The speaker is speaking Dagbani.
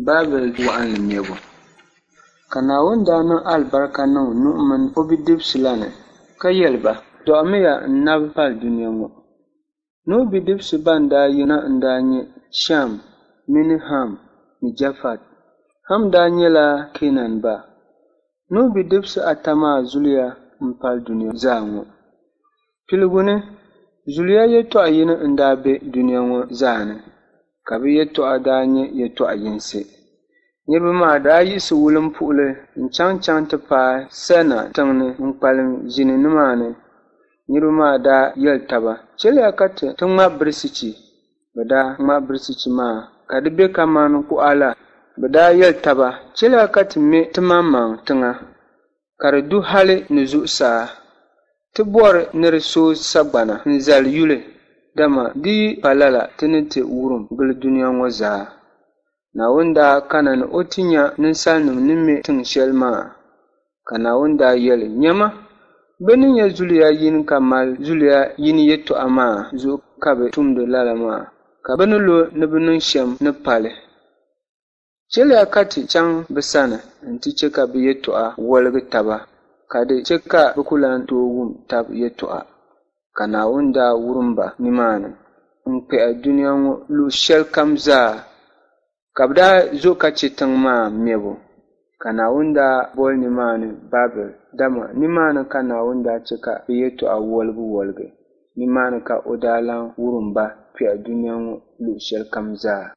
Babɛl waɣinli mɛbu. Ka Naawuni daa niŋ alibarika niŋ Nuhu min o bidibisi la ni ka yɛli ba, Dɔɣimiya n-nabi pali dunia ŋɔ. Nuhu bidibisi bɛn daa yina n-daa nyɛ Shɛm mini Ham ni Jafɛt. Ham daa nyɛla Keenan ba. Nuhu bidibisi ata maa zuliya m-pali dunia zaa ŋɔ. Piligu ni, zuliya yɛtɔɣ yini n-daa be dunia ŋɔ zaa ni, ka bɛ yɛtɔɣa daa nyɛ yɛtɔɣ yinsi. Niriba maa daa yiɣisi wulimpuhili n-chaŋchaŋ ti paai Sɛna tiŋ ni n-kpalim ʒini nimaani. Niriba maa daa yɛli taba, Chɛliya ka ti ti ŋma birisichi. Bɛ daa ŋma birisichi maa ka di be kaman kuɣa la. Bɛ daa yɛli taba, Chɛliya ka ti me timaŋmaŋ tiŋa, ka di du hali ni zuɣusaa. Ti bɔri ni di sooi sagbana n-zali yuli, dama di yi pa lala ti ni ti wurim gili dunia ŋɔ zaa. Naawuni daa kana ni o ti nya ninsalinim ni me tiŋ shɛli maa. Ka Naawuni daa yɛli, Nyama, bɛ ni nyɛ zuliya yini ka mali zuliya yini yɛtɔɣa maa zuɣu ka bɛ tumdi lala maa, ka bɛ ni lo ni bɛ niŋ shɛm ni pali. Chɛliya ka ti chaŋ bɛ sani nti chɛ ka bɛ yɛtɔɣa woligi taba, ka di chɛ ka bɛ ku lan tooi wum tab yɛtɔɣa. Ka Naawuni daa wurim ba nimaani n-kpɛhi dunia ŋɔ luɣ shɛlikam zaa, ka bɛ daa zo ka chɛ tiŋ maa mɛbu. Ka Naawuni daa boli nimaani Babɛl, dama nimaani ka Naawuni daa chɛ ka bɛ yɛtɔɣa woligiwoligi. Nimaani ka o daa lan wurim ba kpɛhi dunia ŋɔ luɣ shɛlikam zaa.